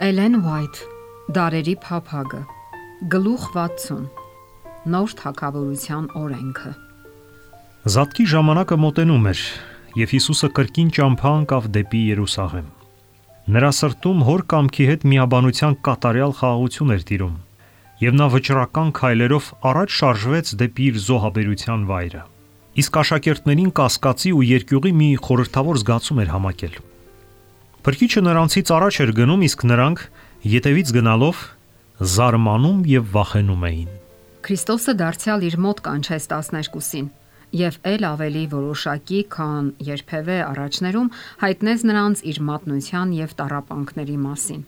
Էլեն Ուայթ, Դարերի փափագը, գլուխ 60, նոր թագավորության օրենքը։ Զատկի ժամանակը մոտենում էր, եւ Հիսուսը կրկին ճամփա ընկավ դեպի Երուսաղեմ։ Նրա սրտում հոր կամքի հետ միաբանության կատարյալ խաղաղություն էր տիրում, եւ նա վճռական քայլերով առաջ շարժվեց դեպի իր զոհաբերության վայրը։ Իսկ աշակերտներին կասկածի ու երկյուղի մի խորհրդավոր զգացում էր համակել։ Փրկիչը նրանցից առաջ էր գնում, իսկ նրանք ետևից գնալով զարմանում եւ վախենում էին։ Քրիստոսը դարձյալ իր մոտ կանչեց 12-ին եւ ել ավելի որոշակի, քան երբևէ առաջներում հայտնեց նրանց իր մատնության եւ տառապանքների մասին։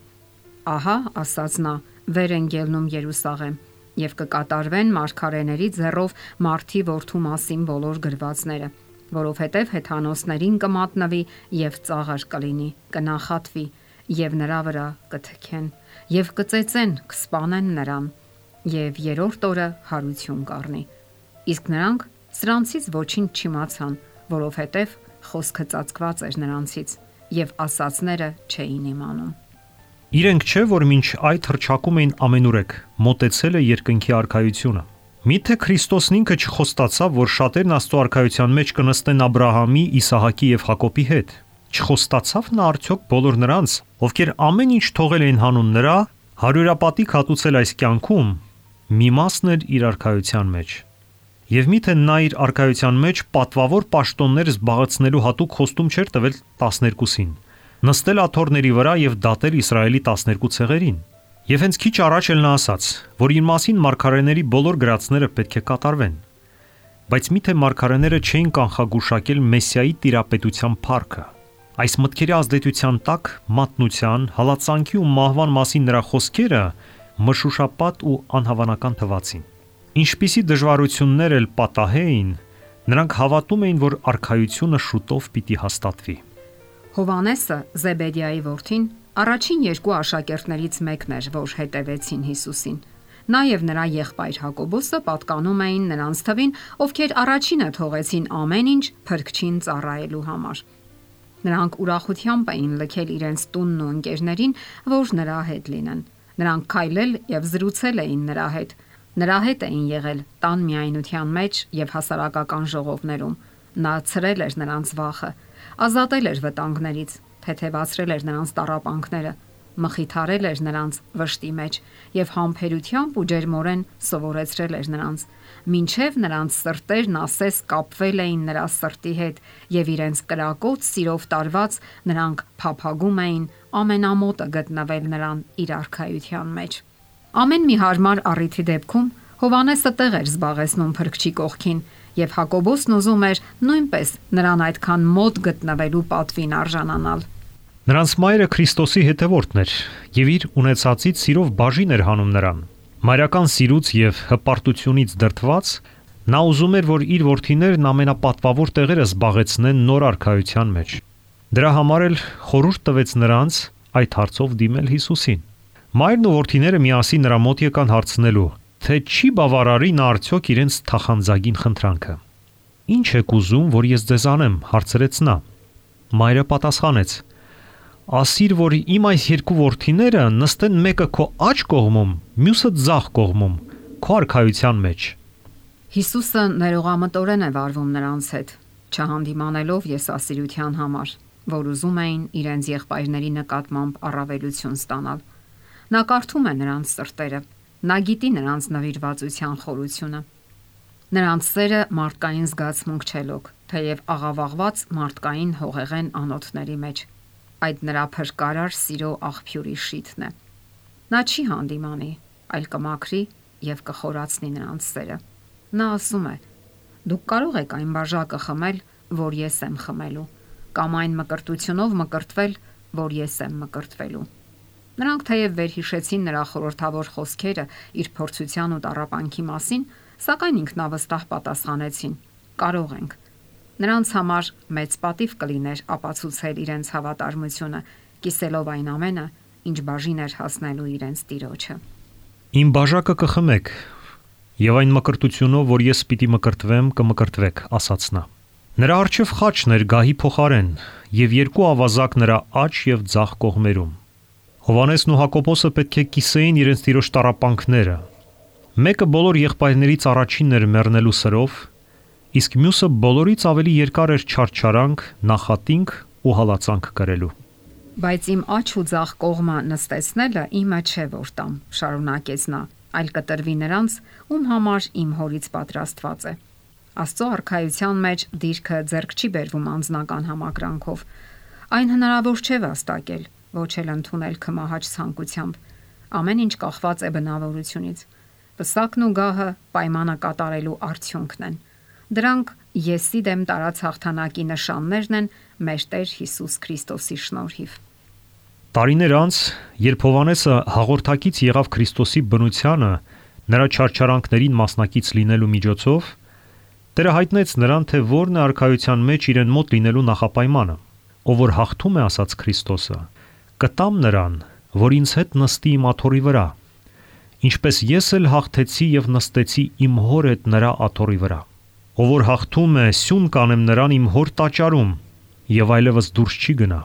Ահա, ասաց նա, վեր են ելնում Երուսաղեմ եւ կկատարվեն մարգարեների ձեռով Մարդի որդու մասին բոլոր գրվածները, որովհետև հեթանոսներին կմատնվի եւ ծաղր կլինի, կնախատվի եւ նրա վրա կթքեն եւ կծեծեն, կսպանեն նրան եւ երրորդ օրը հարություն կառնի։ Իսկ նրանք սրանցից ոչինչ չիմացան, որովհետև խոսքը ծածկված էր նրանցից եւ ասածները չէին իմանում։ Իրենք չէ, որ մինչ այդ հռչակում էին ամենուրեք, մոտեցել է երկնքի արքայությունը։ Միթե Քրիստոսն ինքը չխոստացավ, որ շատերն Աստծո արքայության մեջ կնստեն Աբրահամի, Իսահակի եւ Հակոբի հետ։ Չխոստացավ նա արդյոք բոլոր նրանց, ովքեր ամեն ինչ թողել էին հանուն նրա, հարյուրապատիկ հատուցել այս կյանքում, մի մասն էր իր արքայության մեջ։ Եվ միթե նա իր արքայության մեջ պատվավոր պաշտոններ զբաղեցնելու հատուկ խոստում չէր տվել 12-ին, նստել աթոռների վրա եւ դատել Իսրայելի 12 ցեղերին։ Եվ հենց քիչ առաջ էլ նա ասաց, որ իր մասին մարգարեների բոլոր գրածները պետք է կատարվեն։ Բայց միթե մարգարեները չէին կանխագուշակել Մեսիայի տիրապետության փառքը։ Այս մտքերի ազդեցության տակ մատնության, հալածանքի ու մահվան մասին նրա խոսքերը մշուշապատ ու անհավանական թվացին։ Ինչպիսի դժվարություններ էլ պատահեին, նրանք հավատում էին, որ արքայությունը շուտով պիտի հաստատվի։ Հովանեսը, Զեբեդիայի որդին, առաջին երկու աշակերտներից մեկն էր, որ հետևեցին Հիսուսին։ Նա եւ նրա եղբայր Հակոբոսը պատկանում էին նրանց թվին, ովքեր առաջինը թողեցին ամեն ինչ Փրկչին ծառայելու համար։ Նրանք ուրախությամբ էին լքել իրենց տունն ու ընկերներին, որ նրա հետ լինեն։ Նրանք քայլել եւ զրուցել էին նրա հետ։ Նրա հետ էին եղել տան միայնության մեջ եւ հասարակական ժողովներում։ Նա ցրել էր նրանց վախը, ազատել էր վտանգներից, թեթևացրել էր նրանց տառապանքները, մխիթարել էր նրանց վշտի մեջ եւ համբերությամբ ու ջերմորեն սովորեցրել էր նրանց, մինչեւ նրանց սրտերն ասես կապվել էին նրա սրտի հետ եւ իրենց կրակոտ սիրով տարված նրանք փափագում էին ամենամոտը գտնվել նրան իր արքայության մեջ։ Ամեն մի հարմար առիթի դեպքում Հովանեսը տեղ էր զբաղեցնում Փրկչի կողքին եւ Հակոբոսն ուզում էր նույնպես նրան այդքան մոտ գտնվելու պատվին արժանանալ։ Նրանց մայրը Քրիստոսի հետևորդն էր եւ իր ունեցածից սիրով բաժին էր հանում նրան։ Մայրական սիրուց եւ հպարտությունից դրդված նա ուզում էր, որ իր որդիներն ամենապատվավոր տեղերը զբաղեցնեն նոր արքայության մեջ։ Դրա համար էլ խորհուրդ տվեց նրանց այդ հարցով դիմել Հիսուսին։ Մայրն ու որդիները միասին նրա մոտ եկան հարցնելու, թե չի բավարարի նա արդյոք իրենց թախանձագին խնդրանքը։ Ինչ եք ուզում, որ ես ձեզ անեմ, հարցրեց նա։ Մայրը պատասխանեց. Ասիր, որ իմ այս երկու որդիները նստեն մեկը քո աջ կողմում, մյուսը ձախ կողմում, քո արքայության մեջ։ Հիսուսը ներողամտորեն է վարվում նրանց հետ, չհանդիմանելով եսասիրության համար, որ ուզում էին իրենց եղբայրների նկատմամբ առավելություն ստանալ։ Նա կարդում է նրանց սրտերը, նա գիտի նրանց նվիրվածության խորությունը։ Նրանց սերը մարդկային զգացմունք չելոք, թեև աղավաղված մարդկային հողեղեն անոթների մեջ։ Այդ նրա փրկարար սիրո աղբյուրի շիթն է։ Նա չի հանդիմանի, այլ կմաքրի եւ կխորացնի նրանց սերը։ Նա ասում է. դուք կարող եք այն բաժակը խմել, որ ես եմ խմելու, կամ այն մկրտությունով մկրտվել, որ ես եմ մկրտվելու։ Նրանք թեև վերհիշեցին նրա խորհրդավոր խոսքերը իր փորձության ու տառապանքի մասին, սակայն ինքնավստահ պատասխանեցին. կարող ենք։ Նրանց համար մեծ պատիվ կլիներ ապացուցել իրենց հավատարմությունը, կիսելով այն ամենը, ինչ բաժին էր հասնելու իրենց Տիրոջը։ Իմ բաժակը կխմեք, եւ այն մկրտությունով, որ ես պիտի մկրտվեմ, կմկրտվեք, ասաց նա։ Նրա առջև խաչն էր գահի փոխարեն եւ երկու ավազակ նրա աջ եւ ձախ կողմերում։ Հովհաննեսն ու Հակոբոսը պետք է կիսեին իրենց տիրոջ տառապանքները։ Մեկը բոլոր եղբայրներից առաջինն էր մեռնելու սրով, իսկ մյուսը բոլորից ավելի երկար էր չարչարանք, նախատինք ու հալածանք կրելու։ Բայց իմ աջ ու ձախ կողմը նստեցնելը իմը չէ որ տամ, շարունակեց նա, այլ կտրվի նրանց, ում համար իմ հորից պատրաստված է։ Աստծո արքայության մեջ դիրքը ձեռք չի բերվում անձնական համակրանքով։ Այն հնարավոր չէ վաստակել, ոչ էլ ընդունել քմահաճ ցանկությամբ։ Ամեն ինչ կախված է բնավորությունից։ Պսակն ու գահը պայմանը կատարելու արդյունքն են։ Դրանք եսի դեմ տարած հաղթանակի նշաններն են մեր Տեր Հիսուս Քրիստոսի շնորհիվ։ Տարիներ անց, երբ Հովհաննեսը հաղորդակից եղավ Քրիստոսի բնությանը, նրա չարչարանքներին մասնակից լինելու միջոցով, Տերը հայտնեց նրան, թե որն է արքայության մեջ իրեն մոտ լինելու նախապայմանը, ով որ հաղթում է ասաց Քրիստոսը, կտամ նրան, որ ինձ հետ նստի իմ աթոռի վրա, ինչպես ես էլ հաղթեցի եւ նստեցի իմ հոր հետ նրա աթոռի վրա, ով որ հաղթում է, սյուն կանեմ նրան իմ հոր տաճարում եւ այլևս դուրս չի գնա,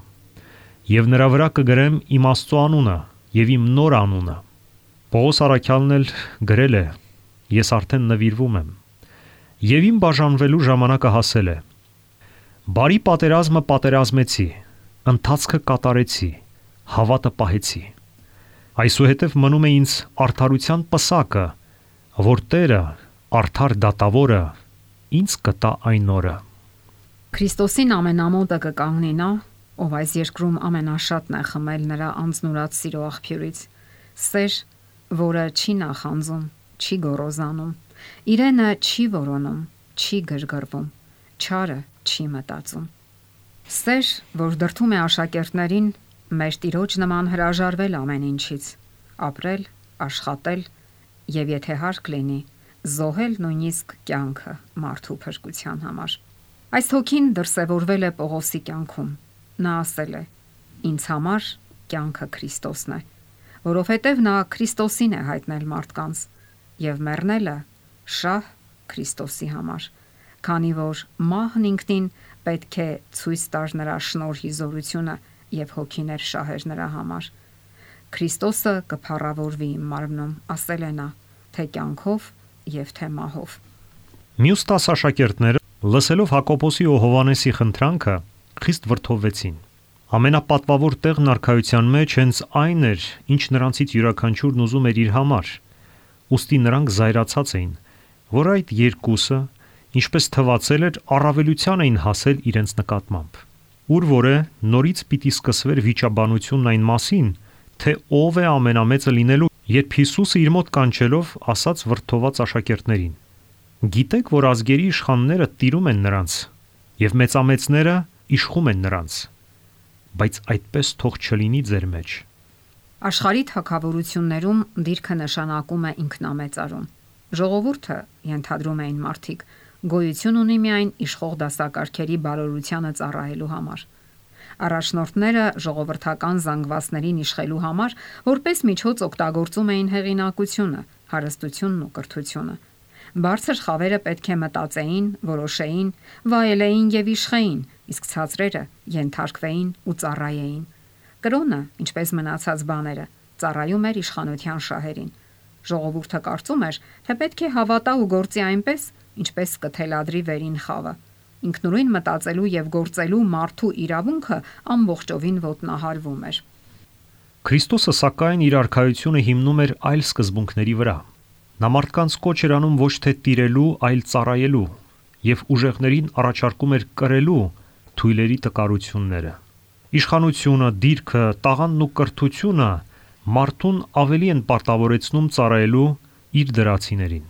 եւ նրա վրա կգրեմ իմ Աստծո անունը եւ իմ նոր անունը։ Պողոս առաքյալն էլ գրել է. ես արդեն նվիրվում եմ եւ իմ բաժանվելու ժամանակը հասել է։ Բարի պատերազմը պատերազմեցի, ընթացքը կատարեցի, հավատը պահեցի։ Այսուհետև մնում է ինձ արդարության պսակը, որ Տերը, արդար դատավորը, ինձ կտա այն օրը։ Քրիստոսին ամենամոտը կկանգնի նա, ով այս երկրում ամենաշատն է խմել նրա անձնուրաց սիրո աղբյուրից, սեր, որը չի նախանձում, չի գոռոզանում, իրենը չի որոնում, չի գրգռվում, չարը չի մտածում։ Սեր, որ դրդում է աշակերտներին մեր Տիրոջ նման հրաժարվել ամեն ինչից, ապրել, աշխատել եւ եթե հարկ լինի, զոհել նույնիսկ կյանքը մարդու փրկության համար։ Այս հոգին դրսևորվել է Պողոսի կյանքում։ Նա ասել է. ինձ համար կյանքը Քրիստոսն է, որովհետև նա Քրիստոսին է հայտնել մարդկանց եւ մեռնելը շահ Քրիստոսի համար, քանի որ մահն ինքնին պետք է ցույց տար նրա շնորհի զորությունը եւ հոգիներ շահեր նրա համար։ Քրիստոսը կփառավորվի իմ մարմնում, ասել է նա, թե կյանքով եւ թե մահով։ Մյուս 10 աշակերտները, լսելով Հակոբոսի ու Հովհաննեսի խնդրանքը, խիստ վրդովվեցին։ Ամենապատվավոր տեղն արքայության մեջ հենց այն էր, ինչ նրանցից յուրաքանչյուրն ուզում էր իր համար։ Ուստի նրանք զայրացած էին, որ այդ երկուսը, ինչպես թվացել էր, առավելության էին հասել իրենց նկատմամբ։ Ուր որ է նորից պիտի սկսվեր վիճաբանությունն այն մասին, թե ով է ամենամեծը լինելու, երբ Հիսուսը իր մոտ կանչելով ասաց վրդոված աշակերտներին. գիտեք, որ ազգերի իշխանները տիրում են նրանց, եւ մեծամեծները իշխում են նրանց, բայց այդպես թող չլինի ձեր մեջ։ Աշխարհի թագավորություններում դիրքը նշանակում է ինքնամեծարում։ Ժողովուրդը, ենթադրում էին մարդիկ, գոյություն ունի միայն իշխող դասակարգերի բարօրությանը ծառայելու համար։ Առաջնորդները ժողովրդական զանգվածներին իշխելու համար որպես միջոց օգտագործում էին հեղինակությունը, հարստությունն ու կրթությունը։ Բարձր խավերը պետք է մտածեին, որոշեին, վայելեին եւ իշխեին, իսկ ցածրերը ենթարկվեին ու ծառայեին։ Կրոնը, ինչպես մնացած բաները, ծառայում էր իշխանության շահերին։ Ժողովուրդը կարծում էր, թե պետք է հավատա ու գործի այնպես, ինչպես կթելադրի վերին խավը։ Ինքնուրույն մտածելու եւ գործելու մարդու իրավունքը ամբողջովին ոտնահարվում էր։ Քրիստոսը սակայն իր արքայությունը հիմնում էր այլ սկզբունքների վրա։ Նա մարդկանց կոչ էր անում ոչ թե տիրելու, այլ ծառայելու, եւ ուժեղներին առաջարկում էր կրելու թույլերի տկարությունները։ Իշխանությունը, դիրքը, տաղանդն ու կրթությունը մարդուն ավելի են պարտավորեցնում ծառայելու իր դրացիներին։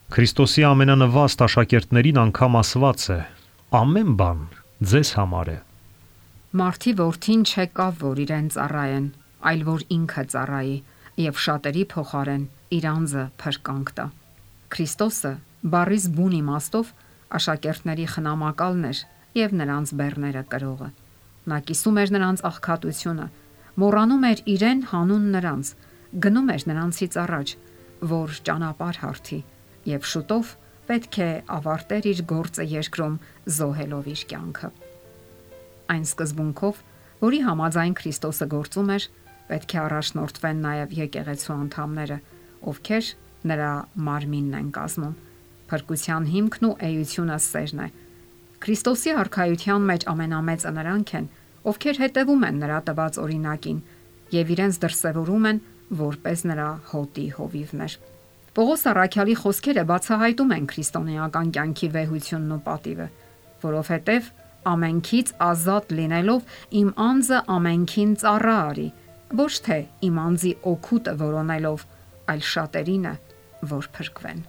Քրիստոսի ամենանվաստ աշակերտներին անգամ ասված է. ամեն բան ձեզ համար է։ Մարդի որդին չեկավ, որ իրեն ծառայեն, այլ որ ինքը ծառայի եւ շատերի փոխարեն իր անձը փրկանք տա։ Քրիստոսը բառիս բուն իմաստով աշակերտների խնամակալն էր եւ նրանց բեռները կրողը։ Նա կիսում էր նրանց աղքատությունը, մոռանում էր իրեն հանուն նրանց, գնում էր նրանցից առաջ, որ ճանապարհ հարթի եւ շուտով պետք է ավարտեր իր գործը երկրում զոհելով իր կյանքը։ Այն սկզբունքով, որի համաձայն Քրիստոսը գործում էր, պետք է առաջնորդվեն նաև եկեղեցու անդամները, ովքեր նրա մարմինն են կազմում։ Փրկության հիմքն ու էությունը սերն է։ Քրիստոսի արքայության մեջ ամենամեծը նրանք են, ովքեր հետևում են նրա տված օրինակին եւ իրենց դրսևորում են որպես նրա հոտի հովիվներ։ Պողոս առաքյալի խոսքերը բացահայտում են քրիստոնեական կյանքի վեհությունն ու պատիվը, որովհետև ամենքից ազատ լինելով իմ անձը ամենքին ծառա արի, ոչ թե իմ անձի օգուտը որոնելով, այլ շատերինը, որ փրկվեն։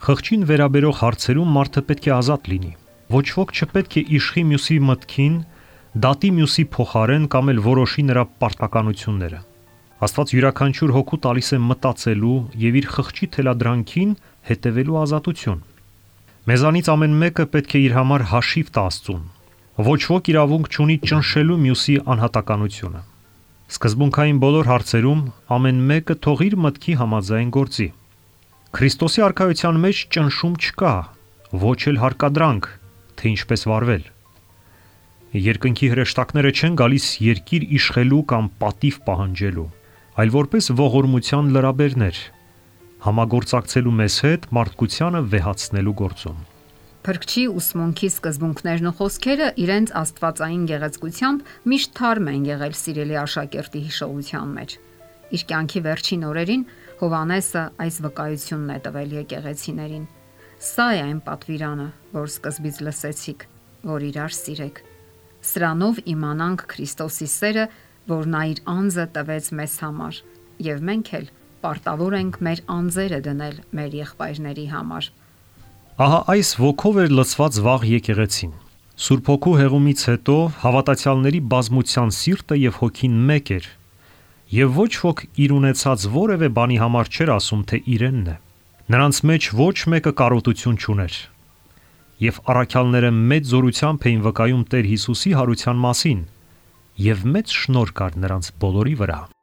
Խղճին վերաբերող հարցերում մարդը պետք է ազատ լինի։ Ոչ ոք չպետք է իշխի մյուսի մտքին, դատի մյուսի փոխարեն կամ էլ որոշի նրա պարտականությունները։ Աստված յուրաքանչյուր հոգու տալիս է մտածելու եւ իր խղճի թելադրանքին հետևելու ազատություն։ Մեզանից ամեն մեկը պետք է իր համար հաշիվ տա Աստծուն։ Ոչ ոք իրավունք չունի ճնշելու մյուսի անհատականությունը։ Սկզբունքային բոլոր հարցերում ամեն մեկը թող իր մտքի համաձայն գործի։ Քրիստոսի արքայության մեջ ճնշում չկա, ոչ էլ հարկադրանք, թե ինչպես վարվել։ Երկնքի հրեշտակները չեն գալիս երկիր իշխելու կամ պատիվ պահանջելու, այլ որպես ողորմության լրաբերներ, համագործակցելու մեզ հետ մարդկությանը վեհացնելու գործում։ Փրկչի ուսմունքի սկզբունքներն ու խոսքերը իրենց աստվածային գեղեցկությամբ միշտ թարմ են եղել սիրելի աշակերտի հիշողության մեջ։ Իր կյանքի վերջին օրերին Հովհաննեսը այս վկայությունն է տվել եկեղեցիներին. «Սա է այն պատվիրանը, որ սկզբից լսեցիք, որ իրար սիրեք։ Սրանով իմանանք Քրիստոսի սերը, որ նա իր անձը տվեց մեզ համար, եւ մենք էլ պարտավոր ենք մեր անձերը դնել մեր եղբայրների համար»։ Ահա այս ոգով էր լցված վաղ եկեղեցին։ Սուրբ Հոգու հեղումից հետո հավատացյալների բազմության սիրտը եւ հոգին մեկ էր, եւ ոչ ոք իր ունեցած որևէ բանի համար չէր ասում, թե իրենն է։ Նրանց մեջ ոչ մեկը կարոտություն չուներ։ Եվ առաքյալները մեծ զորությամբ էին վկայում Տեր Հիսուսի հարության մասին, եւ մեծ շնորհ կար նրանց բոլորի վրա։